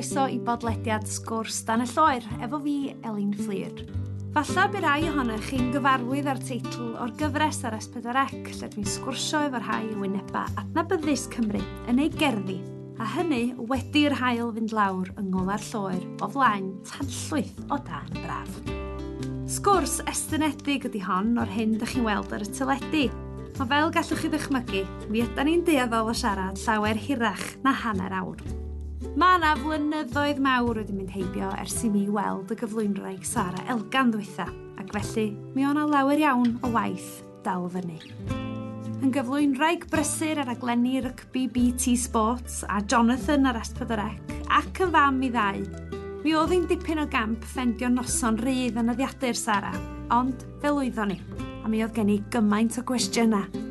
chroeso i bodlediad Sgwrs Dan y Lloer efo fi, Elin Fflur. Falla by rai ohonoch chi'n gyfarwydd â'r teitl o'r gyfres ar S4C lle dwi'n sgwrsio efo rhai o wynebau adnabyddus Cymru yn ei gerddi, a hynny wedi'r haul fynd lawr yng ngola'r lloer o flaen tanllwyth o dan braf. Sgwrs estynedig ydy hon o'r hyn dych chi'n weld ar y teledu, ond fel gallwch chi ddychmygu, mi ydan ni'n dueddol o siarad llawer hirach na hanner awr. Mae yna flynyddoedd mawr wedi mynd heibio ers i mi weld y gyflwynwraig Sara Elgan ddwytha, ac felly mi o' 'na lawer iawn o waith dal fyny. Yn gyflwynwraig brysur ar raglenni rygbi BT Sports a Jonathan ar S4C ac yn fam i ddau, mi oedd hi'n dipyn o gamp ffendio noson rydd yn nyddiadur Sara, ond fe lwyddon ni, a mi oedd gen i gymaint o gwestiynau.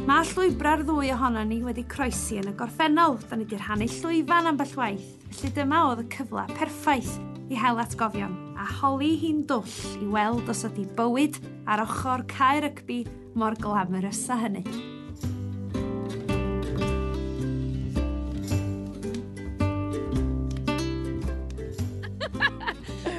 Mae llwybrau'r ddwy ohonon ni wedi croesi yn y gorffennol, da ni wedi rhannu llwyfan ambell waith, felly dyma oedd y cyfle perffaith i hel atgofion a holi hi'n dwll i weld os ydy bywyd ar ochr cae rygbi mor glamorous â hynny.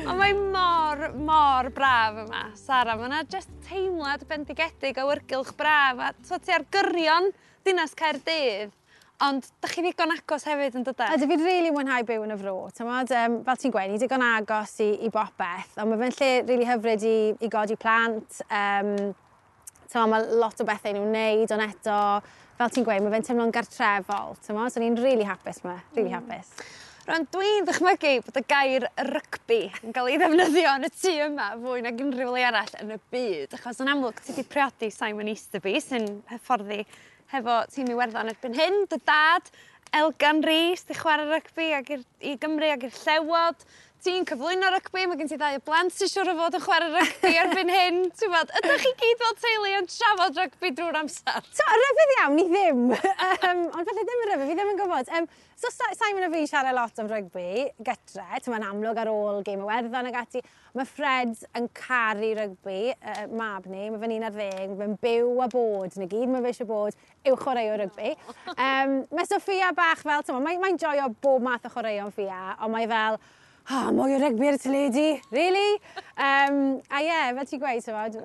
Ond mae mor, mor braf yma, Sara. Mae yna jyst teimlad bendigedig o awyrgylch braf a t'o' ti ar gyrion dinas Caerdydd, ond 'dach chi ddigon agos hefyd yn dydan? Ydw, fi'n rili mwynhau byw yn y fro, t'mod, fel ti'n gweud, ni digon agos i bopeth, ond ma' fe'n lle rili hyfryd i godi plant, t'mod, ma' lot o bethau i nhw wneud, ond eto, fel ti'n gweud, ma' fe'n teimlo'n gartrefol, t'mod, so ni'n rili hapus 'ma, rili hapus. Rwan, dwi'n ddychmygu bod y gair rygbi yn cael ei ddefnyddio yn y tŷ yma fwy nag unrhyw le arall yn y byd, achos yn amlwg ti 'di priodi Simon Easterby sy'n hyfforddi hefo tîm Iwerddon erbyn hyn, dy dad Elgan Rees 'di chwarae rygbi ag i'r i Gymru ag i'r Llewod. Ti'n cyflwyno rygbi, mae gen ti ddau o blant sy'n siŵr o fod yn chwarae rygbi erbyn hyn. Ti'n gwbod, ydych chi gyd fel teulu yn trafod rygbi drwy'r amser? So, ryfedd iawn, ni ddim. Ond falle ddim yn ryfedd, fi ddim yn gwybod. So Simon a fi'n siarad lot am rygbi gytre, ti'n amlwg ar ôl gêm Iwerddon ag ati. Mae Fred yn caru rygbi, mab ni, mae fe'n 11, mae fe'n byw a bod, na gyd mae fe eisiau bod yw chwaraewr rygbi. Mae Sophia bach fel, ti'n mae'n joio bob math o chwaraeon Fia, ond mae fel, oh, mwy o rygbi ar y teledu, really? A ie, yeah, fel ti'n gweud, t'mod,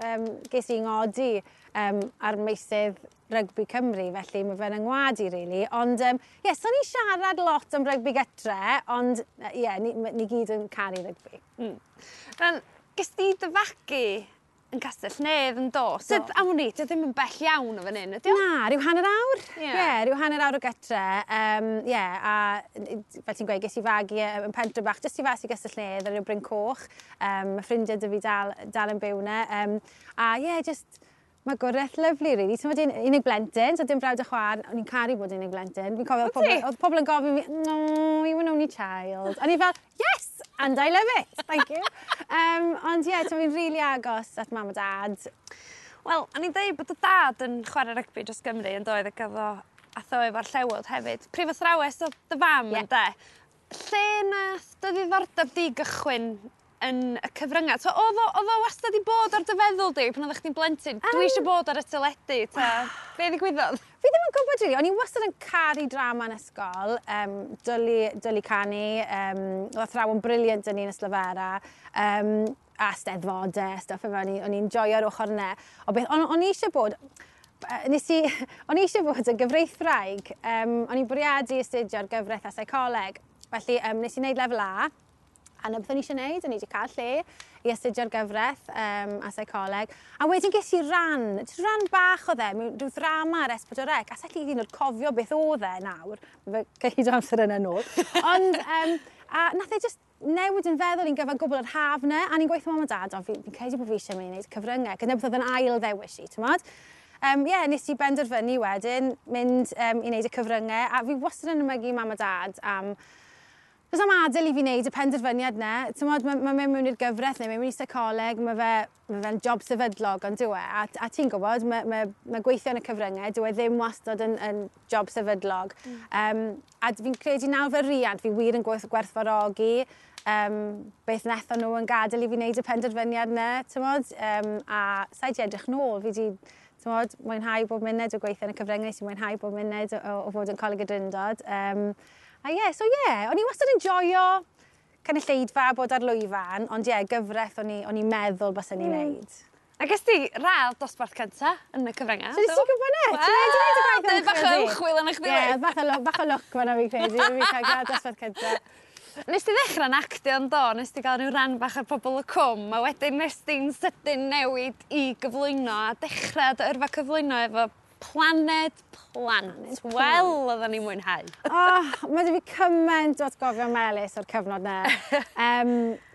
ges i ngodi ar meysydd rygbi Cymru, felly mae fe'n yngwadu, really. Ond, ie, yeah, so ni'n siarad lot am rygbi gytre, ond, ie, yeah, ni gyd yn caru rygbi. Rwan, ges di dy fagu yn Castell Nedd yn do? Sydd, am wn i, dio ddim yn bell iawn o fan hyn, ydi o? Na, rhyw hanner awr. Ie, yeah, rhyw hanner awr o gytre. Ie, a fel ti'n gweud, ges i fagu yn pentre bach, jyst i fas i Gastell Nedd ar ryw Bryn Coch. Mae ffrindiau 'da fi dal yn byw 'na. A ie, yeah, just magwraeth lyfli, really. Ti'n meddwl, unig blentyn, so dim brawd a chwaer, o'n i'n caru bod unig blentyn. Fi'n cofio oedd pobl yn gofyn fi, no, you were an only child. O'n i fel, yes, and I love it, thank you. Ond ie, yeah, fi'n rili agos at mam a dad. Wel, o'n i'n deud bod dy dad yn chwarae rygbi dros Gymru yn doedd ac oedd o atho efo'r Llewod hefyd. Prifathrawes oedd dy fam, ynde? Lle nath dy ddiddordeb di gychwyn yn y cyfryngau? So, oedd o wastad i bod ar dy feddwl di pan oeddech chdi'n blentyn? Dwi eisiau bod ar y teledu, ta be ddigwyddodd? Fi ddim yn gwybod, really. O'n i wastad yn caru drama yn ysgol, dwlu canu, oedd athrawon brilliant yn un Ystalyfera, a steddfodau, stuff efo, o'n i'n joio'r ochr yna. O beth, o'n i eisiau bod, nes i, o'n i eisiau bod yn gyfreithwraig, o'n i'n bwriadu astudio'r gyfraith a seicoleg, felly nes i wneud lefel A, a 'na beth o'n i eisiau gwneud, o'n i wedi cael lle i astudio'r gyfraith a seicoleg. A wedyn ges i ran, jyst ran bach oedd e, mewn rhyw ddrama ar S4C, a sa i hyd yn oed cofio beth oedd e nawr, fe cyhyd o amser yna nôl. Ond, a nath e just newid yn feddwl i'n gyfan gwbl yr haf 'na, a ni'n gweithio mam a dad, ond fi'n credu bod fi eisiau mynd i wneud cyfryngau, gyda beth oedd yn ail ddewis i, t'mod? Ie, nes i benderfynu wedyn mynd i wneud y cyfryngau, a fi wastad yn ymygu mam a dad am Does am adael i fi wneud y penderfyniad 'na. T'mod, ma mynd mewn i'r gyfraith neu mynd mewn i seicoleg, ma fe'n job sefydlog, ond dyw e. A ti'n gwybod, ma gweithio yn y cyfryngau, dyw e ddim wastad yn job sefydlog. A fi'n credu nawr fel riant, fi wir yn gwerthfawrogi beth wnaethon nhw yn gadael i fi wneud y penderfyniad 'na, t'mod. A sa i 'di edrych nôl, fi 'di, t'mod, mwynhau bob munud o gweithio yn y cyfryngau, nes i mwynhau bob munud o fod yn Coleg y Drindod. A ie, so ie, o'n i wastad yn joio cynulleidfa, bod ar lwyfan, ond ie, gyfraith o'n i'n meddwl byswn i'n neud. A ges ti radd dosbarth cynta yn y cyfryngau? So nes ti'n gwybod ne? Ti'n neud y gwaith ymchwil bach o ymchwil yn eich Ie, bach o lwc fan'na fi'n credu, fi cael gradd dosbarth cynta. Nes ti ddechrau'n actio yn do, nes ti gael rhyw ran bach ar Pobol y Cwm, a wedyn nes ti'n sydyn newid i gyflwyno a dechrau dy yrfa cyflwyno efo Planed Plant. Wel, oedden ni'n mwynhau. Oh, mae 'da fi cymaint o atgofion melys o'r cyfnod 'na.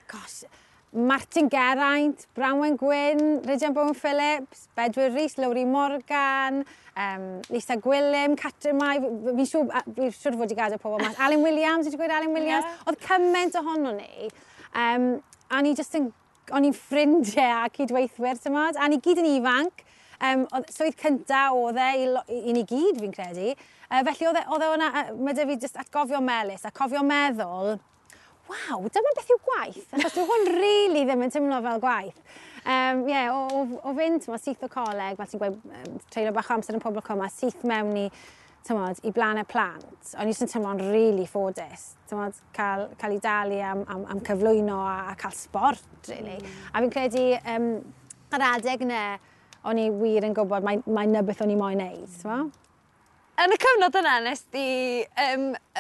Gosh, Martin Geraint, Branwen Gwyn, Rhydian Bowen Phillips, Bedwyr Rhys, Lowri Morgan, Lisa Gwilym, Catrin Mai, fi'n siŵr, fi siŵr fod i gadael pobl mas. Alun Williams, wedi gweud Alun Williams? Yeah. Oedd cymaint ohono ni. A ni just yn, o'n i'n ffrindiau a cydweithwyr, ti'n modd? A ni gyd yn ifanc. Oedd swydd cynta oedd e i ni gyd, fi'n credu. Felly oedd e hwnna, mae 'da fi just atgofio melys a cofio meddwl, waw, dyma beth yw gwaith, achos dwi hwn really ddim yn teimlo fel gwaith. Yeah, o fynd, t'mo, syth o coleg, fel ti'n gweud, treulio bach o amser yn Pobol y Cwm, a syth mewn i, t'mod, i Blaned Plant. O'n i jyst yn teimlo'n really ffodus, t'mod, cael ei dalu am cyflwyno a cael sbort, really. A fi'n credu, yr adeg yna, o'n i wir yn gwybod mai 'na beth o'n i moyn neud, t'mo'? Yn y cyfnod yna, nes di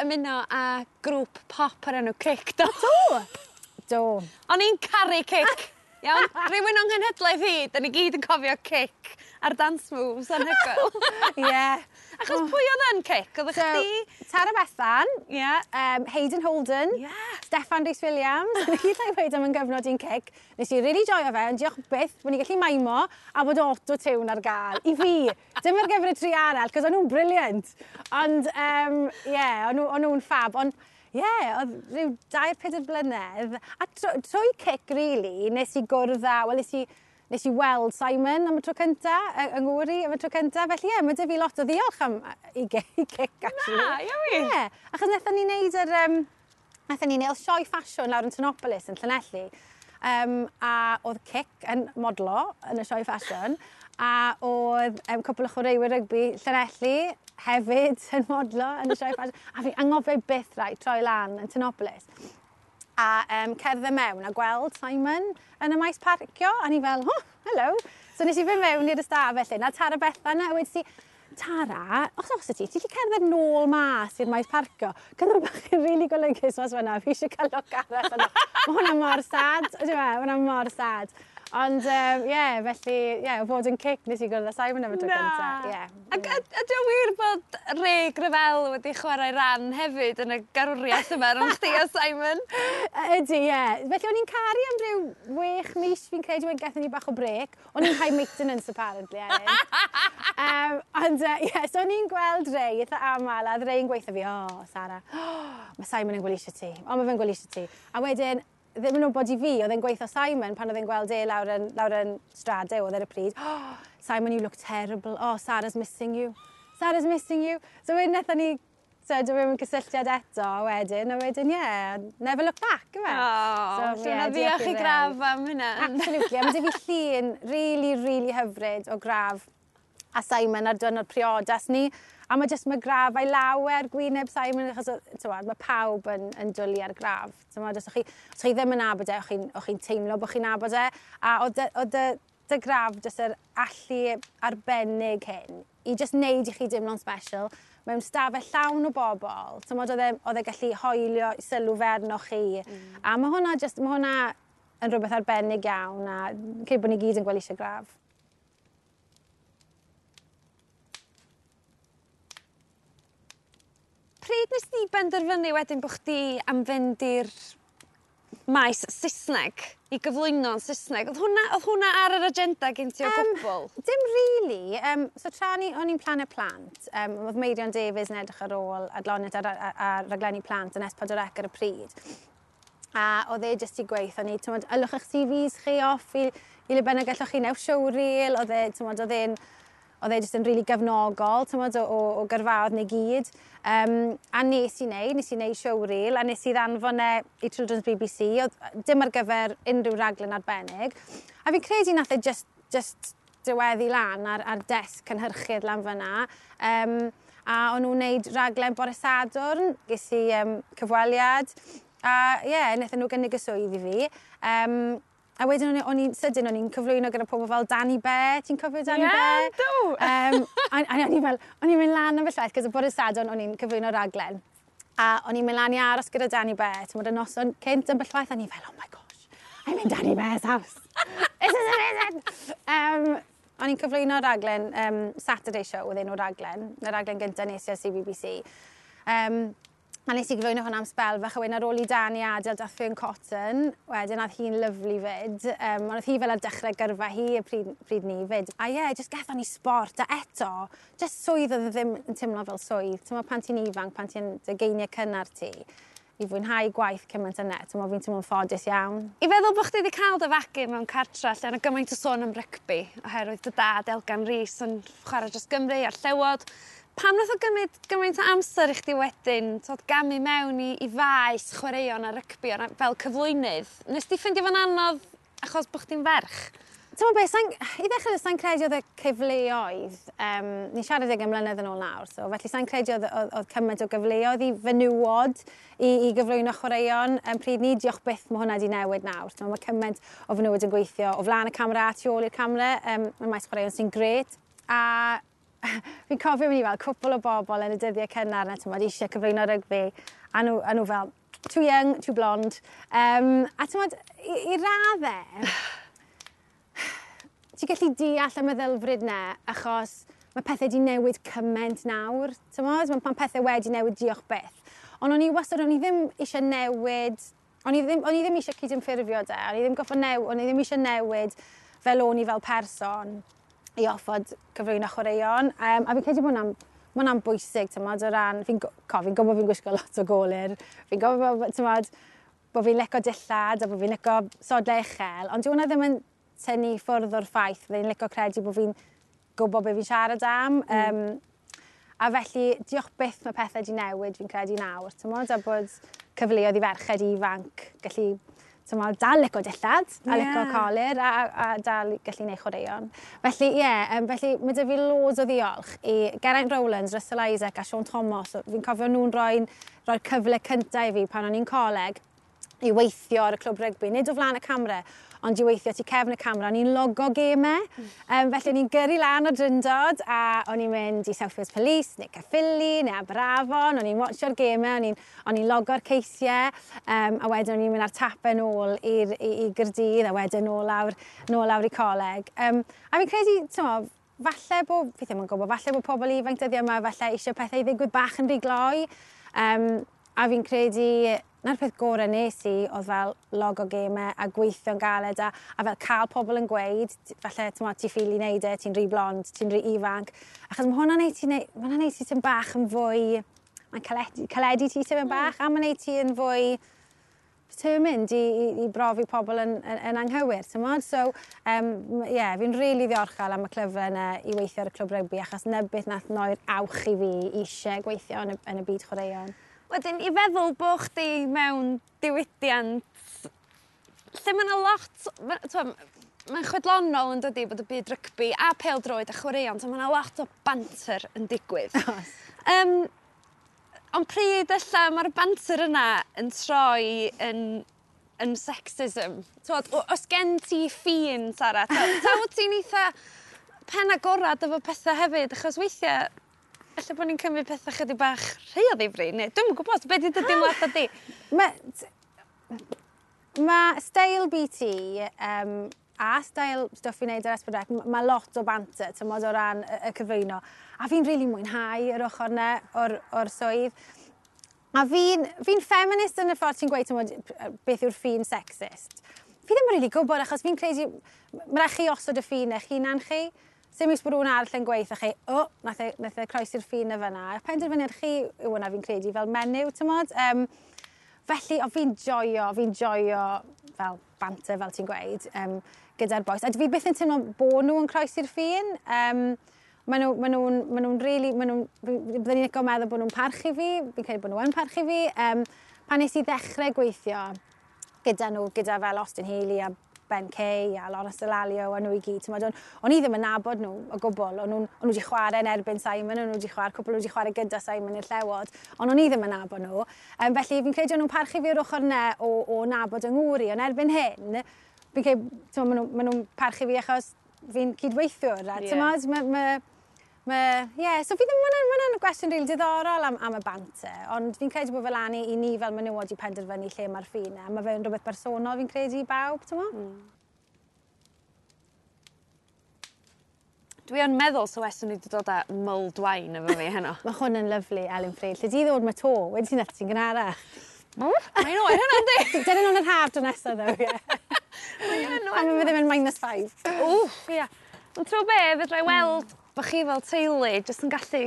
ymuno â grŵp pop o'r enw Cic, do? Do! Do. O'n i'n caru Cic. Iawn? Rhywun o'n nghenhedlaeth i, da ni gyd yn cofio Cic a'r dance moves anhygoel. Ie. Achos pwy oedd yn Cic? Oedd So, chdi? Tara Bethan, Hayden Holden, Steffan Rhys Williams. Ni gyd llai weud am yn gyfnod i'n Cic. Nes i really joio fe, ond diolch byth bod ni'n gallu maimo a bod auto-tune ar gael. I fi, dim ar gyfer y tri arall, cos o'n nhw'n brilliant. Ond, ie, o'n nhw'n fab. Ond, ie, yeah, oedd rhyw 2-4 blynedd. A trwy Cic, really, nes i gwrdd â, wel, nes i weld Simon am y tro cynta, yng Nghymru am y tro cynta. Felly, ie, mae 'da fi lot o ddiolch am i Cic, actually. Na, iawn. Ie, yeah, achos wnaethon ni wneud yr... Wnaethon ni wneud sioe ffasiwn lawr yn Tinopolis yn Llanelli. A oedd Cic yn modlo yn y sioe ffasiwn. A oedd cwpl o chwaraewyr rygbi Llanelli hefyd yn modlo yn y sioe ffasiwn. A fi anghofio byth rai troi lan yn Tinopolis. A cerdded mewn a gweld Simon yn y maes parcio. A ni fel, oh, hello. So nes i fynd mewn i'r ystafell hyn, a Tara Bethan, a wedi si, Tara, os ti, ti'n gallu cerdded nôl mas i'r maes parcio? Cyn bach yn rili golygus mas fan'na, fi eisiau cael look arall yno. Mae hwnna mor sad, ydw e, mae hwnna mor sad. Ond, ie, yeah, felly, ie, yeah, o fod yn Cic nes i gwrdd â Simon am y tro cynta. Ie. Ac ydy o wir bod Ray Gravell wedi chwarae ran hefyd yn y garwriaeth yma rhwng chdi a Simon? Ydy, ie. Felly o'n i'n caru am ryw 6 mis, fi'n credu, wedyn gaethon ni bach o brêc. O'n i'n high maintenance, apparently, Elin. Ond, ie, yeah, so o'n i'n gweld Ray eitha aml, a oedd Ray yn gweithio fi, oh, Sara, oh, mae Simon yn gweld eisiau ti. O, mae fe'n gweld eisiau ti. A wedyn, ddim yn wybod i fi, oedd e'n gweithio Simon pan oedd e'n gweld e lawr yn Strade, oedd ar y pryd. Oh, Simon, you look terrible. Oh, Sarah's missing you. Sarah's missing you. So wedyn wnaethon ni, so dwi mewn cysylltiad eto wedyn, a wedyn, yeah, never look back, yw e? Oh, so, yeah, diolch i Ray. Grav am hynna. Absolutely. A mae 'da fi llun really, really hyfryd o Grav a Simon ar diwrnod priodas ni. A mae jyst mae Grav a'i lawer gwyneb Simon, achos t'mod, mae pawb yn dwlu ar Grav. T'mod, os chi ddim yn nabod e, o'ch chi'n teimlo bod chi'n nabod e. A oedd dy Grav jyst yr allu arbennig hyn i jyst neud i chi deimlo'n special mewn stafell llawn o bobl. T'mod, oedd e gallu hoelio sylw fe arnoch chi. A mae hwnna yn rhywbeth arbennig iawn a credu bod ni gyd yn gweld eisiau Grav. Pryd nes di benderfynu wedyn bod chdi am fynd i'r maes Saesneg, i gyflwyno'n Saesneg? Oedd hwnna ar yr agenda gen ti o gwbl? Dim really. So tra o'n i'n Planed Plant, oedd Meirion Davies yn edrych ar ôl adloniant ar raglenni plant yn S4C ar y pryd. A oedd e jyst i gweithio ni, t'mod, ylwch eich CVs chi off i le bynnag gallwch chi newch showreel, oedd e, t'mod, oedd e jyst yn rili really gefnogol, t'mod, o gyrfaoedd ni gyd. A nes i wneud showreel, a nes i ddanfon e i Children's BBC, oedd dim ar gyfer unrhyw raglen arbennig. A fi'n credu nath e just diweddu lan ar desg cynhyrchydd lan fyna. A o'n nhw'n neud raglen bore Sadwrn, ges i cyfweliad, a ie, yeah, wnaethon nhw gynnig y swydd i fi. A wedyn o'n i'n sydyn, o'n i'n cyflwyno gyda pobl fel Danny Bear. Ti'n cofio Danny Bear? Ie, do! A o'n i'n fel, o'n i'n mynd lan am fy llaeth, cos y bore Sadwrn o'n i'n cyflwyno raglen. A o'n i'n mynd lan i aros gyda Danny Bear, ti'n y noson cynt yn bellwaith, a o'n i'n fel, "Oh my gosh, I'm in Danny Bear's house. This is amazing!" O'n i'n cyflwyno raglen, Saturday Show oedd enw'r raglen, y raglen gyntaf nes i ar CBBC. A nes i gyflwyno hwnna am sbel fach, a wedyn ar ôl i Danny adael dath Fearne Cotton, wedyn oedd hi'n lyfli fyd. Ond oedd hi fel ar dechrau gyrfa hi y pryd ni fyd. A ie, yeah, just gaethon ni sport, a eto, just swydd oedd ddim yn teimlo fel swydd. Ti'n pan ti'n ifanc, pan ti'n ugeiniau cynnar ti, i fwynhau gwaith cymaint yna, ti'n fi'n teimlo'n ffodus iawn. I feddwl bod chdi wedi cael dy fagu mewn cartra lle yna gymaint o sôn am rygbi, oherwydd dy dad Elgan Rees yn chwarae dros Gymru a'r Llewod. Pam nath o gymryd gymaint o amser i chdi wedyn, tod, gamu mewn i faes chwaraeon a rygbi fel cyflwynydd? Nes di ffeindio fo'n anodd achos bod chdi'n ferch? Ti'n beth, i ddechrau, sa'n credu oedd y cyfleoedd, ni'n siarad 20 mlynedd yn ôl nawr, so felly sa'n credu oedd cymaint o gyfleoedd i fenywod i gyflwyno chwaraeon. Pryd ni, diolch byth, mae hwnna wedi newid nawr. Ti'n mae cymaint o fenywod yn gweithio o flaen y camera a tu ôl i'r camera, mae maes chwaraeon sy'n grêt. A fi'n cofio mynd i fel cwpl o bobl yn y dyddiau cynnar na, ti'n eisiau cyflwyno rygbi, a nhw fel, "Too young, too blonde." A ti'n i raddau, ti'n gallu deall y meddylfryd 'na, achos mae pethau wedi newid cymaint nawr. Ti'n mae pethau wedi newid, diolch byth. Ond o'n i wastad, o'n i ddim eisiau newid, o'n i ddim eisiau cydymffurfio de, o'n i ddim eisiau newid fel o'n i fel person i orfod cyflwyno chwaraeon. A fi'n credu bod hwnna'n ma hwnna'n bwysig, ti'n o ran, fi'n gwybod fi'n gwisgo lot o golir, fi'n gwybod, ti'n bod fi'n licio dillad a bod fi'n licio sodlau uchel, ond dyw hwnna ddim yn tynnu ffwrdd o'r ffaith, fi'n licio credu bod fi'n gwybod beth fi'n siarad am. A felly, diolch byth mae pethau wedi newid, fi'n credu nawr, ti'n a bod cyfleoedd i ferched ifanc gallu, ti'n dal licio dillad a licio colir a dal gallu neud chwaraeon. Felly, ie, yeah, felly mae 'da fi loads o ddiolch i Geraint Rowlands, Russell Isaac a Sean Thomas. Fi'n cofio nhw'n rhoi cyfle cyntaf i fi pan o'n i'n coleg i weithio ar y clwb rygbi, nid o flaen y camera, ond i weithio tu cefn y camera. O'n i'n logo gemau, felly o'n i'n gyrru lan o Drindod a o'n i'n mynd i South Wales Police, neu Caerffili, neu Aberafon, o'n i'n watcho'r gemau, o'n i'n logo'r ceisiau, a wedyn o'n i'n mynd ar tapau nôl i Gaerdydd, a wedyn nôl lawr i coleg. A fi'n credu, ti'n falle bod, fi ddim yn gwybod, falle bod pobl ifanc dyddiau yma, falle eisiau pethau i ddigwydd bach yn rhy gloi. A fi'n credu na'r peth gorau nes i oedd fel logo gemau a gweithio'n galed a fel cael pobl yn gweud, falle ti ffili wneud e, ti'n rhy blond, ti'n rhy ifanc. Achos ma hwnna'n neud ti ti'n bach yn fwy, mae'n caledu ti tipyn bach, a mae'n neud ti yn fwy determined i brofi pobl yn anghywir, ti'n mod? So, yeah, fi'n rili really ddiolchgar am y cyfle yna i weithio ar y clwb rygbi, achos 'na beth nath roi'r awch i fi eisiau gweithio yn y byd chwaraeon. Wedyn, i feddwl bod chdi mewn diwydiant lle mae yna lot, mae'n chwedlonol yn dydi bod y byd rygbi a pêl-droed a chwaraeon, so mae yna lot o banter yn digwydd. Ond pryd ella mae'r banter yna yn troi yn sexism? Twod, os gen ti ffin, Sara, ta wyt ti'n eitha pen agorad efo pethau hefyd, achos weithiau ella bod ni'n cymryd pethau chydig bach rhy o ddifri, neu dwi'm yn gwybod, beth ydy dy deimlad di? Mae steil BT a steil stwff fi'n neud ar S4C, mae lot o banter, ti'n o ran y cyflwyno. A fi'n rili really mwynhau yr ochr yna o'r swydd. A fi feminist yn y ffordd ti'n gweud, ti'n beth yw'r ffin sexist. Fi ddim yn rili really gwybod, achos fi'n credu, mae rhaid chi osod y ffin eich hunan chi. Sim iws bod rhywun arall yn gweithio chi, "O, oh, nath e croesi'r ffin y fyna." Penderfyniad chi yw hwnna fi'n credu fel menyw, ti'n mod? Felly, o, fi'n joio fel banter, fel ti'n gweud, gyda'r bois. A fi byth yn teimlo bod nhw yn croesi'r ffin. Maen nhw really, byddwn ni'n licio meddwl bod nhw'n parchu fi, fi'n credu bod nhw yn parchu fi. Pan nes i ddechrau gweithio gyda nhw, gyda fel Austin Healey a Ben Kay a Lawrence Dallaglio a nhw i gyd. T'mod, o'n i ddim yn nabod nhw o gwbl. O'n nhw wedi chwarae yn erbyn Simon, o'n nhw wedi chwarae, cwpl wedi chwarae gyda Simon i'r Llewod, ond o'n i ddim yn nabod nhw. Felly fi'n credu o'n nhw'n parchu fi o'r ochr yna o nabod yng ngŵr i, ond erbyn hyn, fi'n credu, t'mod, ma nhw parchu fi achos fi'n cydweithiwr. A, t'mod, yeah, so fi ddim, ma gwestiwn rili diddorol am y banter, ond fi'n credu bod fel lan i ni fel menywod i penderfynu lle mae'r ffin, a mae fe'n rhywbeth bersonol fi'n credu i bawb, t'mo? Dwi yn meddwl so weswn ni wedi dod â mulled wine efo fi heno. Mae hwn yn lyfli, Elin Fflur. Lle di ddod mae to, wedi ti'n ti'n gynharach. Mae'n oer hynna, yndi? Dyn nhw'n yr haf dro nesaf, ddo, ie. Mae'n A mae ddim yn -5. Wff, ia. Ond ti'n be, fedra i weld bod chi fel teulu jyst yn gallu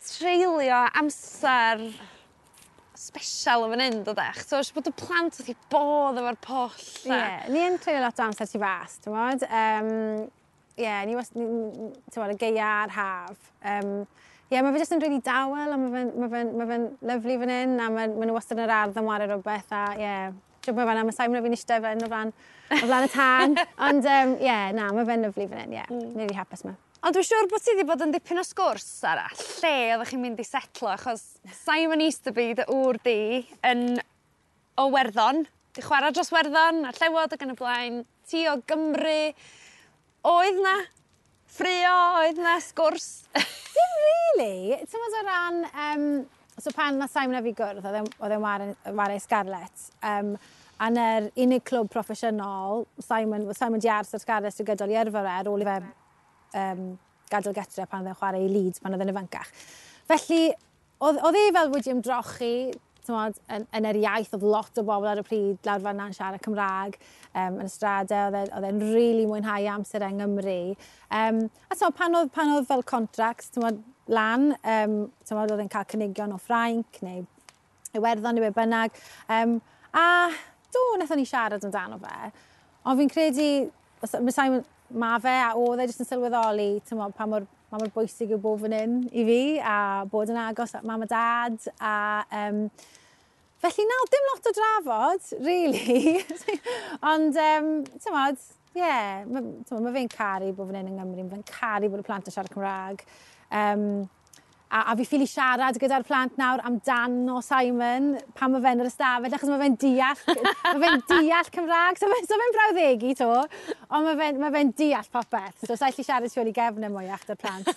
treulio amser special yn fan hyn, dydach? So, eisiau bod y plant wrth i bodd efo'r pwll. Ie, yeah, ni yn treulio lot o amser tu fas, ti'n modd? Ie, ni, ti'n modd, y gaea a'r haf. Ie, mae fe jyst yn really dawel a ma fe'n lyfli fan hyn a ma nhw wastad yn yr ardd yn wario rhywbeth a ie, yeah. Mae fe'n, mae Simon a fi'n eistedd fan o flaen y tân. Ond ie, yeah, na, mae fe'n lyfli fan hyn, ie. Yeah. Ni'n really hapus yma. Ond dwi'n siŵr bod ti wedi bod yn dipyn o sgwrs, Sara, lle oeddech chi'n mynd i setlo, achos Simon Easterby, dy ŵr di, yn o Werddon, di chwarae dros Werddon, a'r Llewod ac yn y blaen, ti o Gymru. Oedd na ffrio, oedd na sgwrs? Dim really. Ti'n meddwl o ran... So pan nath Simon a fi gwrdd, oedd e'n ware Scarlets. A na'r unig clwb proffesiynol, Simon di aros ar Scarlets trwy gydol i yrfa fe ar ôl i fe gadael getre pan oedd e'n chwarae i Leeds pan oedd e'n ifancach. Felly, oedd e fel wedi ymdrochi, t'mod, yn yr iaith, oedd lot o bobl ar y pryd lawr fan'na yn siarad Cymraeg yn y stradau, oedd e'n really mwynhau amser yng Nghymru. A t'mod, pan oedd fel contracts, t'mod, lan, t'mod, oedd e'n cael cynigion o Ffrainc neu Iwerddon neu be bynnag. A do, wnaethon ni siarad amdano fe. Ond fi'n credu, mae Simon, ma fe a oedd e jyst yn sylweddoli, t'mod, pa mor bwysig yw bod fan hyn i fi a bod yn agos at mam a dad a felly na, dim lot o drafod, really. Ond, t'mod, ie, yeah, ma fe'n caru bod fan hyn yng Nghymru, ma fe'n caru bod y plant yn siarad Cymraeg. A fi ffili siarad gyda'r plant nawr amdano Simon pan mae fe'n yr ystafell, achos mae fe'n deall Cymraeg, so fe'n brawddegu to, ond ma fe deall popeth. So sa'i allu siarad tu ôl i gefn e mwyach 'da'r plant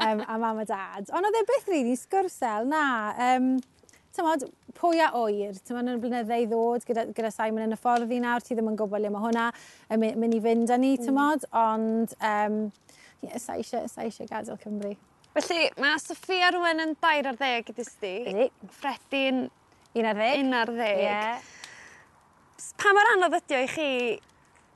a mam a dad. Ond oedd e byth really sgwrsel, na. T'mod, pwy a ŵyr, t'mod, yn y blynydde i ddod gyda Simon yn y ffordd i nawr, ti ddim yn gwybod le mae hwnna yn mynd i fynd â ni, t'mod, ond yeah, sa eisiau gadael Cymru. Felly, mae Sophia rwan yn 13 i di. Ydi. Freddie'n 11. 11. Ie. Pa mor anodd ydi o i chi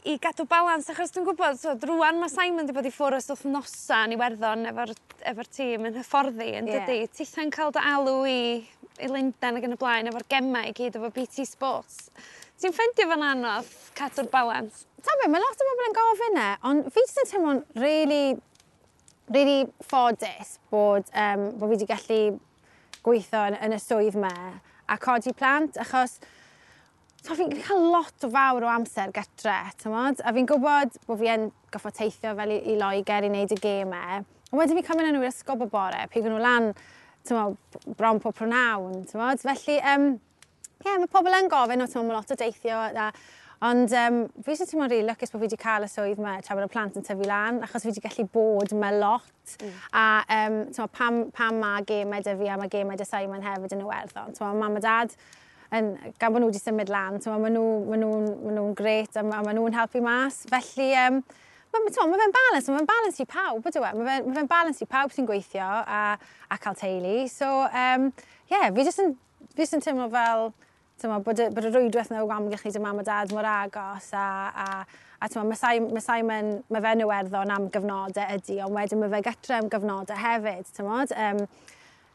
i gadw balans? Achos dwi'n gwybod, so, rwan mae Simon wedi bod i ffwrdd ers wythnosa yn Iwerddon efo tîm yn hyfforddi, yn dydi? Titha'n cael dy alw i Lundain ac yn y blaen efo'r gemau i gyd efo BT Sports. Ti'n ffeindio fo'n anodd cadw'r balans? Ta be, mae lot o bobl yn gofyn e, ond fi jyst yn teimlo'n really, really ffodus bod fi wedi gallu gweithio yn y swydd 'ma a codi plant, achos so fi'n cael lot o fawr o amser gytre, t'mod? A fi'n gwybod bod fi yn goffo teithio fel i Loegr i wneud y gemau. Ond wedyn fi'n cymryd nhw i'r ysgol bob bore, pigo nhw lan, t'mod, bron pob prynawn, t'mod? Felly, ie, mae pobl yn gofyn, o, t'mod, mae lot o deithio, ond fi jyst yn teimlo'n rili lwcus bod fi wedi cael y swydd 'ma tra bod y plant yn tyfu lan, achos fi wedi gallu bod yma lot. A t'mod, pam mae gemau 'da fi a mae gemau 'da Simon hefyd yn Iwerddon. T'mod, mam a dad, gan bod nhw wedi symud lan, t'mod, ma nhw grêt a ma nhw'n helpu mas. Felly, ma fe'n balance, ma fe'n balance i pawb, ydw e? Ma fe'n balance i pawb sy'n gweithio a cael teulu. So, yeah, fi jyst yn teimlo fel, t'mod, bod y rwydwaith 'na o amgylch ni 'da mam a dad mor agos a t'mod, ma Simon, mae fe'n Iwerddon am gyfnodau ydy, ond wedyn mae fe gytre am gyfnodau hefyd, t'mod.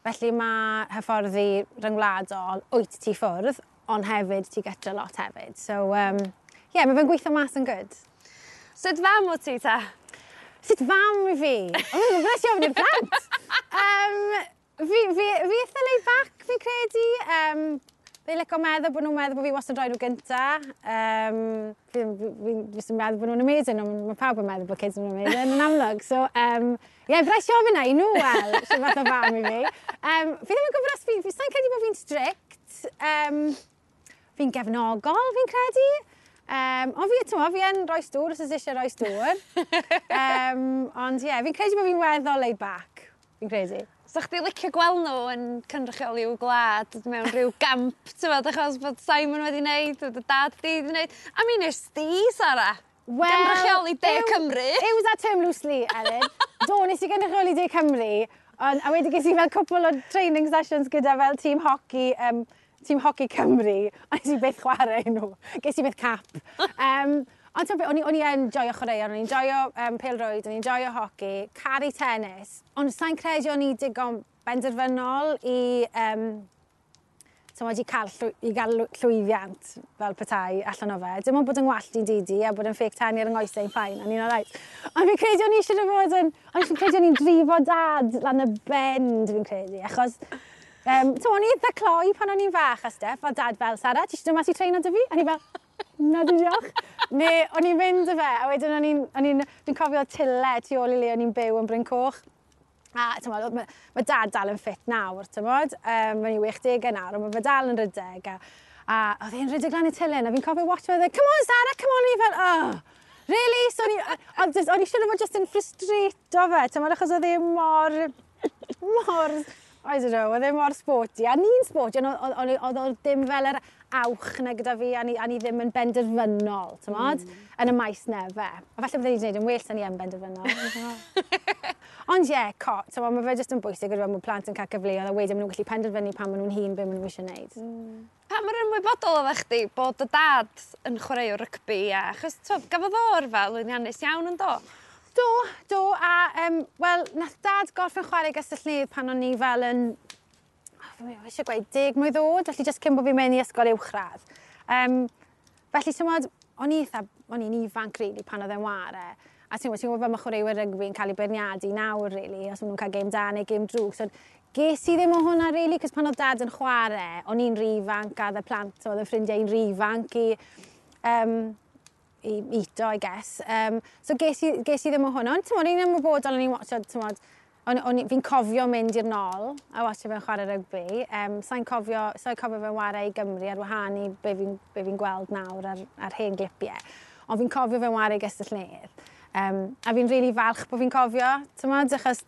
Felly mae hyfforddi ryngwladol, wyt ti ffwrdd, ond hefyd ti gytre lot hefyd. So, yeah, mae fe'n gweithio mas yn good. Sut fam o ti ta? Sut fam i fi? O, mae'n bless i ofyn i'r plant. Um, fi, fi, fi eitha laid back, fi'n credu. Um, Fi'n licio meddwl bod nhw'n meddwl bod fi wastad yn rhoi nhw gynta. Fi jyst yn meddwl bod nhw'n amazing, ond mae pawb yn meddwl bod kids yn amazing, yn amlwg. So, ie, yeah, fi eisiau ofyn na i nhw, wel, sy'n fath o fam i fi. Fi ddim yn gwybod os fi sa'n credu bod fi'n strict. Fi'n gefnogol, fi'n credu. Ond fi, ti'n fi yn rhoi stŵr, os oes eisiau rhoi stŵr. Ond ie, yeah, fi'n credu bod fi'n weddol laid back, fi'n credu. So chdi licio gweld nhw yn cynrychioli i'w gwlad mewn rhyw gamp, ti'n meddwl, achos bod Simon wedi wneud, dy dad di wedi wneud. A mi nes di, Sara, well, gynrychioli De Cymru. Use that term loosely, Elin. Do, nes i gynrychioli De Cymru, ond, a wedi ges i fel cwpl o training sessions gyda fel tîm hockey Cymru, a nes i byth chwarae nhw. Ges i byth cap. Ond ti'n o'n i yn joio chwaraeon, o'n i'n joio pêl-rwyd, o'n i'n joio hoci, caru tennis, ond sa'n credu o'n i digon benderfynol i, i gael llwyddiant fel petai allan o fe. Dim ond bod yn wallt i'n didi a bod yn fake tan ar yng nghoesau i'n fine, o'n i'n alright. Ond fi'n credu o'n i eisiau bod yn... Ond fi'n credu o'n i'n drifo dad lan y bend, fi'n credu, achos o'n i eitha cloi pan o'n i'n fach a stuff, a dad fel, "Sara, ti eisiau dod mas i treino 'da fi?" A ni fel, "Na, diolch." Neu o'n i'n mynd y fe, a wedyn fi'n cofio tyle tu ôl i le o'n i'n byw yn Bryn Coch. A t'mod, mae dad dal yn ffit nawr, t'mod, mae'n i 60 nawr, ond mae fe dal yn rydeg. A oedd e'n rhedeg lan y tyle, a fi'n cofio watch fe, "Come on, Sarah, come on," a fi fel, "Oh, really?" So o'n i siŵr o fod just yn frustrato fe, t'mod, achos oedd e mor, mor, I don't know, oedd e mor sporty. A ni'n sporty, ond oedd o ddim fel yr awch na gyda fi, a ni ddim yn benderfynol, t'mod, yn y maes 'na fe. A falle bydde ni wedi gwneud yn well na ni yn benderfynol. Ond ie, yeah, t'mod, mae fe jyst yn bwysig gyda bod plant yn cael cyfleoedd a wedyn maen nhw'n gallu penderfynu pan maen nhw'n hŷn be maen nhw eisiau gwneud. Pa mor ymwybodol oeddech chdi bod dy dad yn chwaraewr rygbi a achos t'wod, gafodd o yrfa lwyddiannus iawn yn do? Do, a wel, nath dad gorffen chwarae Gastell pan o'n i fel yn, oh, fi eisiau gweud 10 mlwydd oed, felly jyst cyn bod fi'n mynd i ysgol uwchradd. Felly, ti'n o'n i'n ifanc, really, pan oedd e'n ware. A ti'n gwybod fel mae chwaraewyr rygbi yn cael ei beirniadu nawr, really, os maen nhw'n cael gêm da neu gêm drwg. So, ges i ddim o hwnna, really, cos pan oedd dad yn chwarae, o'n i'n rhy ifanc a oedd y plant, oedd y ffrindiau i'n rhy ifanc i ito, I guess. So ges i ddim o hwnna. Ond ti'n o'n i'n ymwybodol, o'n i'n watcho, ti'n fi'n cofio mynd i'r nôl a watcho fe'n chwarae rygbi. Sa'n cofio fe'n chwarae i Gymru ar wahân i be fi gweld nawr ar hen glipiau. Ond fi'n cofio fe'n chwarae i Gastell Nedd. A fi'n really falch bod fi'n cofio, ti'n achos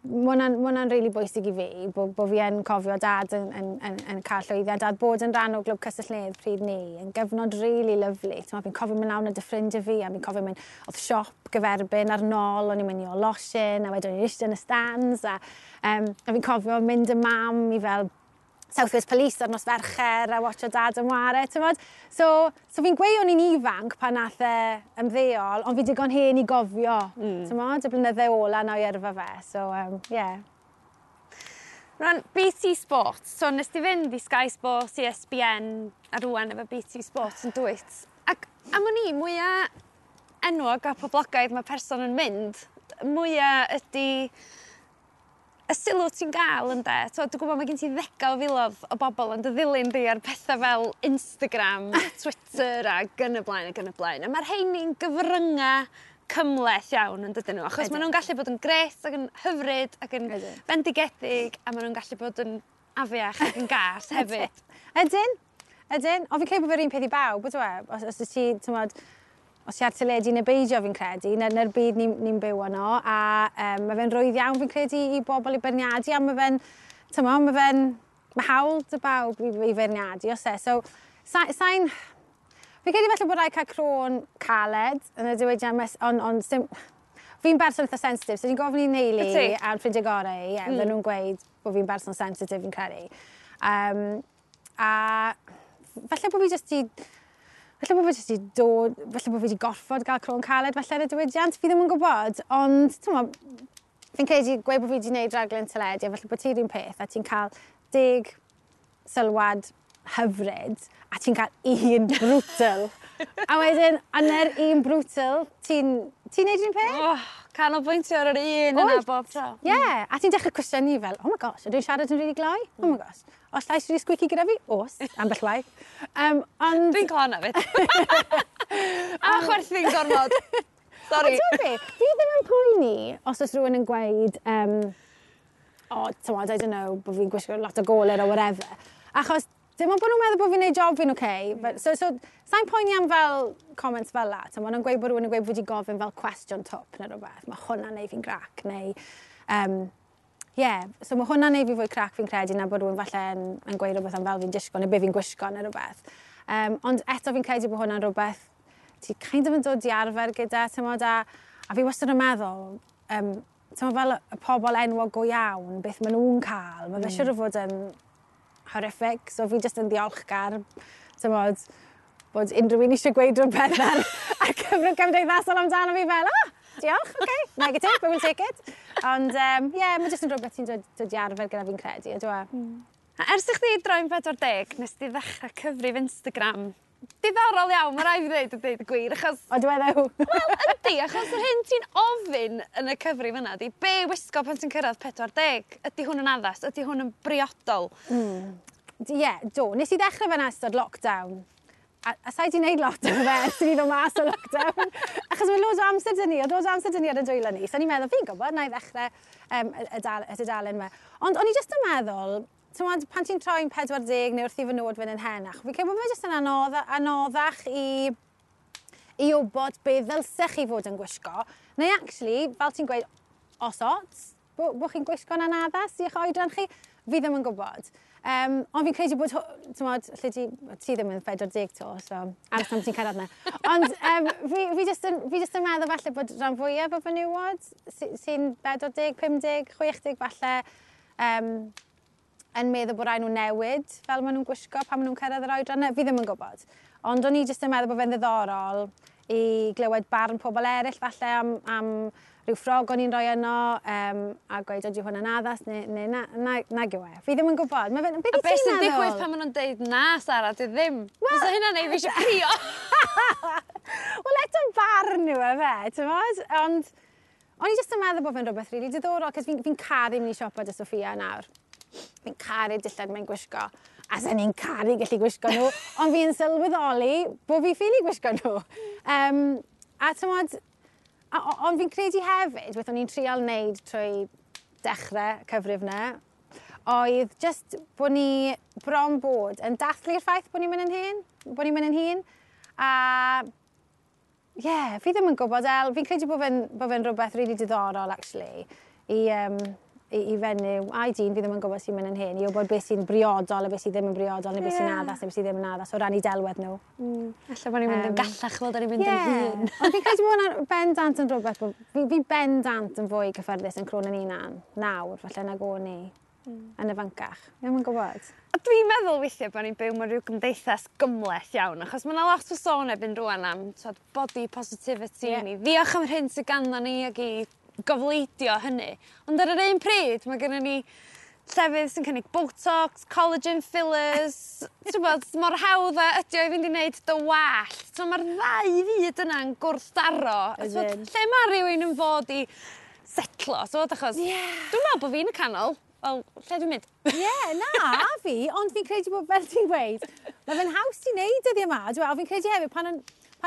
mae hwnna'n really bwysig i fi, bo fi yn cofio dad yn cael llwyddiant, dad bod yn rhan o glwb Castell Nedd pryd ni, yn gyfnod really lovely. Fi'n cofio mynd lawr 'da ffrindiau fi, a fi'n cofio mynd, oedd siop gyferbyn ar nôl, o'n i'n mynd i o losin, a wedyn o'n i'n eistedd yn y stands, a fi'n cofio mynd y mam i fel South Wales Police ar nos Fercher a watcho dad yn ware, ti'n So fi'n gweud o'n i'n ifanc pan nath e ymddeol, ond fi digon hen i gofio, ti'n y blynydde ola na o'i yrfa fe. So, yeah. Rwan, BT Sports, so nes ti fynd i Sky Sports, ESPN, a rwan efo BT Sports yn dwyt. Ac am o'n i, mwyaf enwog a poblogaidd mae person yn mynd, mwyaf ydy y sylw ti'n gael ynde. So, dwi'n gwybod mae gen ti ddegau o filoedd o bobl yn dy ddilyn di ar pethau fel Instagram, Twitter ac yn y blaen ac yn y blaen. A mae'r rheini'n gyfryngau cymhleth iawn yn dydyn nhw, achos maen nhw'n gallu bod yn gret ac yn hyfryd ac yn bendigedig a maen nhw'n gallu bod yn afiach ac yn gas hefyd. Ydyn, ydyn. Ond fi'n credu bod fe'r un peth i bawb, ydw e? Os ti, ti'n os ti ar teledu neu beidio fi'n credu, na'r byd ni'n ni byw yno, a mae fe'n rwydd iawn fi'n credu i bobl i beirniadu, a mae fe'n, ti'n mae hawl 'da bawb i feirniadu, os e. So, fi'n credu falle bod rhaid cael croen caled yn y diwydiant, ond on, fi'n berson eitha sensitif, so fi'n gofyn i'n neulu a'n ffrindiau gorau, ie, nhw'n gweud bod fi'n berson sensitif fi'n credu. A falle bod fi jyst i Falle bod fi jyst i dod, falle bod fi wedi gorfod gael croen caled falle yn y diwydiant, fi ddim yn gwybod, ond ti'n fi'n credu gweud bod fi wedi gwneud raglen teledu, a falle bod ti'r un peth, a ti'n cael 10 sylwad hyfryd, a ti'n cael un brutal. A wedyn, a na'r un brutal, ti'n neud un peth? Oh, Canolbwyntio ar yr un yna bob tro. Ie, yeah, a ti'n dechrau cwestiynu fel, oh my gosh, ydw i'n siarad yn rili gloi? Oh my gosh. Oes llais rili squeaky gyda fi? Oes, ambell waith. Ond... Dwi'n cael hwnna 'fyd. A chwerthin gormod. Sorry. Ond ti'n be, fi ddim yn poeni os oes rhywun yn gweud, oh, t'mod, I don't know, bod fi'n gwisgo lot o goler or whatever. Achos dim ond bod nhw'n meddwl bod fi'n neud job fi'n okay. But, so, sa'n poeni am fel comments fel la. T'mod, maen nhw'n gweud bod rhywun yn gweud bod wedi gofyn fel cwestiwn twp neu rhywbeth. Mae hwnna'n neud fi'n grac. Neu, yeah, so mae hwnna'n neud fi fwy crac fi'n credu na bod rhywun falle yn gweud rhywbeth am fel fi'n disgo neu be fi'n gwisgo neu rhywbeth. Ond eto fi'n credu bod hwnna'n rhywbeth ti kind of yn dod i arfer gyda, t'mod, a fi wastad yn meddwl, t'mod, fel y pobl enwog go iawn, beth maen nhw'n cael, mae fe siŵr o fod yn horrific, so fi jyst yn ddiolchgar, t'mod, bod unrhyw un eisiau gweud rhywbeth ar cyfrwng cymdeithasol amdano fi fel, oh, diolch, okay, negative, but we'll take it. Ond, yeah, mae jyst yn rhywbeth ti'n dod i arfer gyda fi'n credu, ydw e? A ers i chdi droi'n 40, nes di ddechrau cyfrif Instagram. Diddorol iawn, mae rhaid fi ddweud y dweud y gwir, achos... O, dwi meddwl. Wel, yndi, achos yr hyn ti'n ofyn yn y cyfrif yna, di be wisgo pan ti'n cyrraedd 40? Ydy hwn yn addas? Ydy hwn yn briodol? Ie, yeah, do. Nes i ddechrau fe'n ystod lockdown. A sa'i di wneud lot o fe ers i ni ddod mas o lockdown. Achos mae loads o amser dyn ni, oedd loads o amser dyn ni ar y dwylo ni. So o'n i'n meddwl, fi'n gwybod, na i ddechrau y dudalen yma. Ond o'n i jyst yn meddwl, t'mod, pan ti'n troi'n 40 neu wrth i fy nod fynd yn henach, fi'n credu bod fe jyst yn anoddach i wybod be ddylsech chi fod yn gwisgo. Neu actually, fel ti'n gweud, os ots, bo chi'n gwisgo'n anaddas i'ch oedran chi, fi ddim yn gwybod. Ond fi'n credu bod, t'mod, lle ti ddim yn 40 to, so aros tan ti'n cyrraedd na. Ond fi jyst yn meddwl falle bod rhan fwyaf o fenywod sy'n 40, 50, 60 falle, yn meddwl bod rhaid nhw newid fel maen nhw'n gwisgo pan maen nhw'n cyrraedd yr oedran. Fi ddim yn gwybod. Ond o'n i jyst yn meddwl bod fe'n ddiddorol i glywed barn pobl eraill falle am rhyw ffrog o'n i'n rhoi yno, a gweud ydy hwn yn addas neu nag yw e. Fi ddim yn gwybod. Ma' fe'n, beth A wyt beth ti'n sy'n meddwl? digwydd pan maen nhw'n deud na, Sara, di ddim? Wel, Fysa hynna'n neud fi eisiau crio. Wel, eto barn yw e fe, ti'n? Ond o'n i jyst yn meddwl bod fe'n rhywbeth rili diddorol, cos fi'n caru mynd i siopa 'da Sophia nawr. Fi'n caru dillad mae'n gwisgo. A sen i'n caru gallu gwisgo nhw, ond fi'n sylweddoli bod fi ffili gwisgo nhw. A t'mod, ond fi'n credu hefyd, beth o'n i'n trial wneud trwy dechrau cyfrif 'na, oedd just bod ni bron bod yn dathlu'r ffaith bod ni'n mynd yn hŷn, bod ni'n mynd yn hŷn. A ie, yeah, fi ddim yn gwybod, El, fi'n credu bod fe'n rhywbeth really diddorol, actually, i fenyw, a i dyn, fi ddim yn gwybod sy'n mynd yn hŷn, i wybod beth sy'n briodol a beth sydd ddim yn briodol, neu beth sy'n addas, neu beth sydd ddim yn addas, o ran i delwedd nhw. Alla bod ni'n mynd yn gallach fel da ni'n mynd yn hŷn. Ond fi'n credu bod hwnna'n bendant yn rhywbeth, bod fi bendant yn fwy cyffyrddus yn crôn yn hunan nawr, falle nag o'n i yn ifancach. Fi ddim yn gwybod. A dwi'n meddwl weithiau bod ni'n byw mewn rhyw gymdeithas gymhleth iawn, achos mae yna lot o sôn erbyn rŵan am t'wod, body positivity, ni ddiolch am yr hyn sydd ganddo ni ac i gofleidio hynny. Ond ar yr un pryd, mae gennym ni llefydd sy'n cynnig Botox, collagen fillers, ti'n gwbod, mor hawdd a ydi o i fynd i wneud dy wallt. So mae'r ddau fyd yna'n gwrthdaro. A t'wod, Ydyn. lle mae rhywun yn fod i setlo, t'wod, achos dwi'n meddwl bod fi'n y canol. Wel, lle dwi'n mynd? Ie, yeah, na, a fi, ond fi'n credu bod, fel ti'n gweud, mae fe'n haws i wneud dyddiau yma. Dwi'n meddwl, fi'n credu hefyd, pan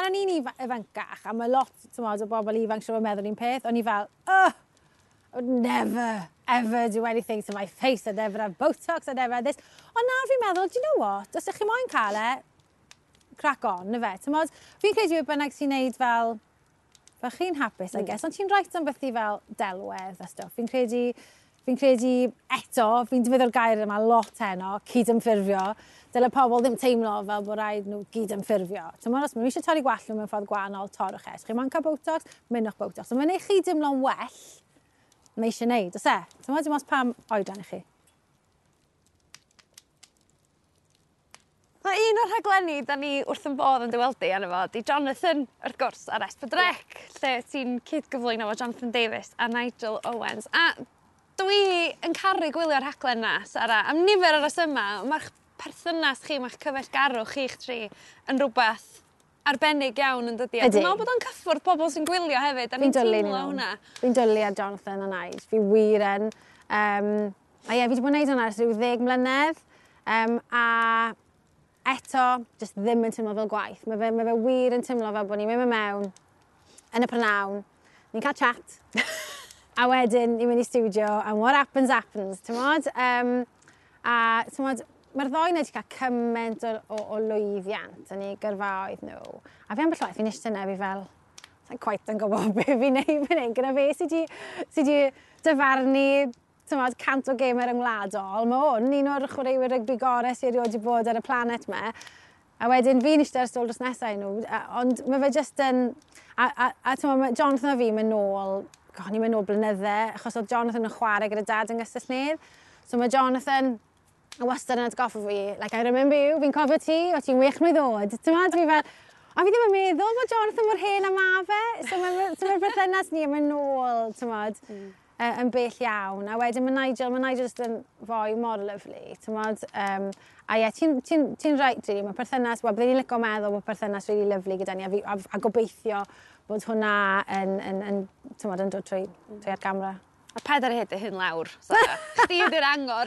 o'n i'n ifancach, a mae lot, t'mod, o bobl ifanc siŵr o meddwl un peth, o'n i fel, oh, I would never, ever do anything to my face, I'd never have Botox, I'd never have this. Ond nawr fi'n meddwl, do you know what, os ydych chi moyn cael e, crack on, na fe. T'mod, fi'n credu beth bynnag sy'n neud fel chi'n hapus, I guess, ond ti'n rhaid am beth i fel delwedd a stwff. Fi'n credu eto, fi'n defnyddio'r gair yma lot heno, cydymffurfio. Dyle pobl ddim teimlo fel bod rhaid nhw gydymffurfio. T'mod, os maen nhw eisiau torri gwallt nhw mewn ffordd gwahanol, torrwch e. Os chi moyn cael Botox, mynnwch Botox. Os mae'n neud chi dimlo'n well, mae eisiau neud, oes e? T'mod, dim ots pam oedran i chi. Mae un o'r rhaglenni da ni wrth yn bodd yn dy weld di arno fo, di Jonathan, wrth gwrs, ar S4C, lle ti'n cyd-gyflwyno efo Jonathan Davies a Nigel Owens. A dwi yn caru gwylio'r rhaglen na, Sara, am nifer o resyma, mae'ch perthynas chi, mae'ch cyfeillgarwch chi'ch tri yn rhywbeth arbennig iawn yn dydi? A dwi'n meddwl bod o'n cyffwrdd pobl sy'n gwylio hefyd, a ni'n teimlo hwnna. Fi'n dwlu ar Jonathan a Nige, fi wir yn. A ie, fi wedi bod yn gwneud hwnna ers rhyw 10 mlynedd, a eto, just ddim yn teimlo fel gwaith. Mae fe wir yn teimlo fel bod ni'n mynd mewn yn y prynawn, ni'n cael chat, a wedyn ni'n mynd i studio, and what happens, happens, ti'n a ti'n mae'r ddoi 'na wedi cael cymaint o lwyddiant yn eu gyrfaoedd nhw. A fi ambell waith, fi'n eistedd yna, fi fel, sa'n quite yn gwybod beth fi'n neud fan hyn, gyda fe sydd wedi dyfarnu 100 o gemau ryngwladol. Mae hwn un o'r chwaraewyr rygbi gorau sydd erioed wedi bod ar y planet 'ma. A wedyn fi'n eistedd ar stôl dros nesaf i nhw, ond mae fe just yn... A ti'n mae Jonathan a fi mynd nôl, god, ni'n mynd nôl blynydde, achos oedd Jonathan yn chwarae gyda dad yng Nghastell-nedd. So mae Jonathan yn wastad yn atgoffa fi, like, I remember you, fi'n cofio ti, o ti'n wych mlwydd oed. Ti'n meddwl, fi fel, a fi ddim yn meddwl bod Jonathan mor hen a ma fe. So mae'r so ma berthynas ni yn mynd nôl, ti'n modd, yn bell iawn. A wedyn mae Nigel just yn foi mor lyfli, ti'n modd. A ie, ti'n ti, ti right, really, mae perthynas, wel, byddwn ni'n licio meddwl bod perthynas really lyfli gyda ni, a gobeithio bod hwnna yn, ti'n modd, yn dod trwy ar gamera. A paid ar hyd y hyn lawr, Sara. Chdi ydy'r angor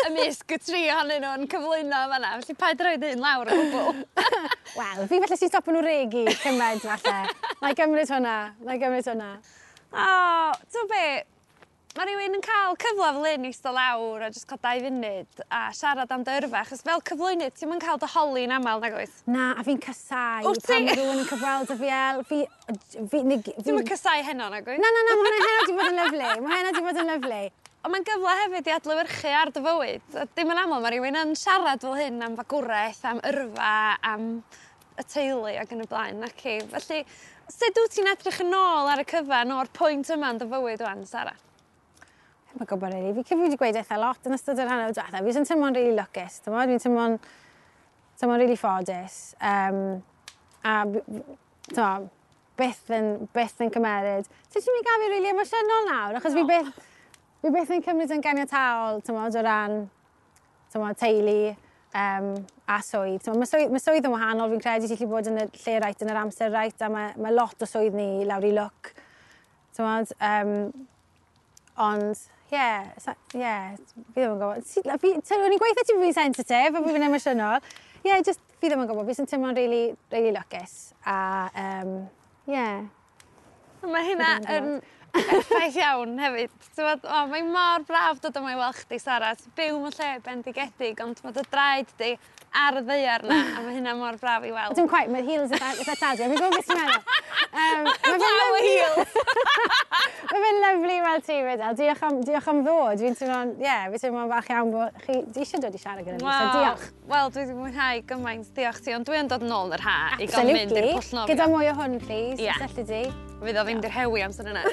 ymysg y tri ohonyn nhw'n cyflwyno fanna. Felly paid ar hyd y hyn lawr o gwbl. Wel, fi falle sy'n stopo nhw regi cymaint falle. Na i gymryd hwnna, na i gymryd hwnna. O, ti'n be, mae rhywun yn cael cyfle fel hyn i eistedd lawr a jyst cael 2 funud a siarad am dy yrfa, achos fel cyflwynydd ti'm yn cael dy holi'n aml, nag oes? Na, a fi'n casau pan mae rhywun yn cyfweld â fi el. Ti'm yn casau heno, nag oes? Na, na, na, mae hwnna heno di bod yn lyfli. Mae heno di bod yn lyfli. Ond mae'n gyfle hefyd i adlewyrchu ar dy fywyd. A dim yn aml mae rhywun yn siarad fel hyn am fagwraeth, am yrfa, am y teulu ac yn y blaen, naci. Felly, sut wyt ti'n edrych yn ôl ar y cyfan o'r pwynt yma yn dy fywyd wan, Sara? Mae'n gwybod, really. Fi wedi gweud eitha lot yn ystod yr hanner diwetha. Fi sy'n teimlo'n really lwcus, ti'n Fi'n teimlo'n really ffodus. A ti'n byth yn cymeryd. Ti'n mynd i gael fi really emosiynol nawr, achos fi byth yn cymryd yn ganiataol, ti'n o ran teulu a swydd. Mae swydd yn wahanol, fi'n credu ti'n gallu bod yn y lle right yn yr amser right, a mae lot o swydd ni lawr i lwc. Ond, ie, fi ddim yn gwybod. O'n i'n gweithio ti fi'n sensitif a fi'n emosiynol. Ie, just fi ddim yn gwybod. Fi sy'n teimlo'n really, really lwcus. A, ie. Mae hynna yn effaith iawn hefyd. O, mae mor braf dod yma i weld chdi, Sara. Ti'n byw mewn lle bendigedig, ond mae dy draed di ar y ddaear na, a mae hynna mor braf i weld. Dim quite, mae'r heels eitha tadwy. Fi'n gwybod beth ti'n meddwl. Blaw y heels! Mae fe'n lyfli weld ti fyd, El. Diolch am ddod. Fi'n teimlo'n, ie, fi'n teimlo'n falch iawn bod chi di eisiau dod i siarad gyda fi, so diolch. Wel, dwi wedi mwynhau gymaint, diolch ti, ond dwi yn dod yn ôl yn yr ha i gael mynd i'r pwll nofio. Gyda mwy o hwn, please, os elli di. Fydd o ddim di'r hewi amser yna.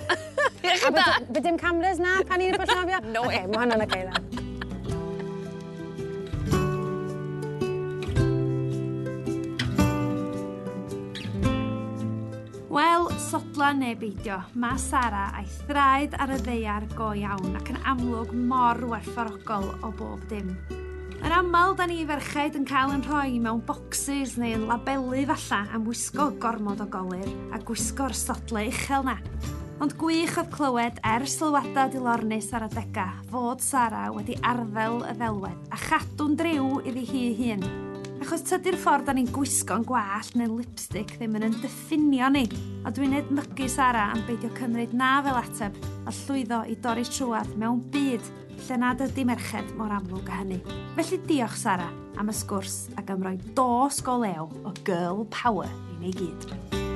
Diolch yn da. Bydd dim cameras na pan i'n pwll nofio? No way. Okay, mae hwnna'n okay then. Wel, sodla neu beidio, mae Sara a'i thraed ar y ddaear go iawn ac yn amlwg mor werthfawrogol o bob dim. Yn aml, da ni ferched yn cael yn rhoi mewn boxes neu yn labelu falla am wisgo gormod o golir a gwisgo'r sodle uchel na. Ond gwych oedd clywed er sylwadau dilornus ar adega fod Sara wedi arddel y ddelwedd a chadw'n driw iddi hi hun. Achos tydi'r ffordd da ni'n gwisgo'n gwallt neu'n lipstick ddim yn diffinio ni. A dwi'n edmygu Sara am beidio cymryd na fel ateb a llwyddo i dorri trwad mewn byd lle nad ydy merched mor amlwg â hynny. Felly diolch Sara am y sgwrs ac am roi dos go lew o girl power i ni gyd.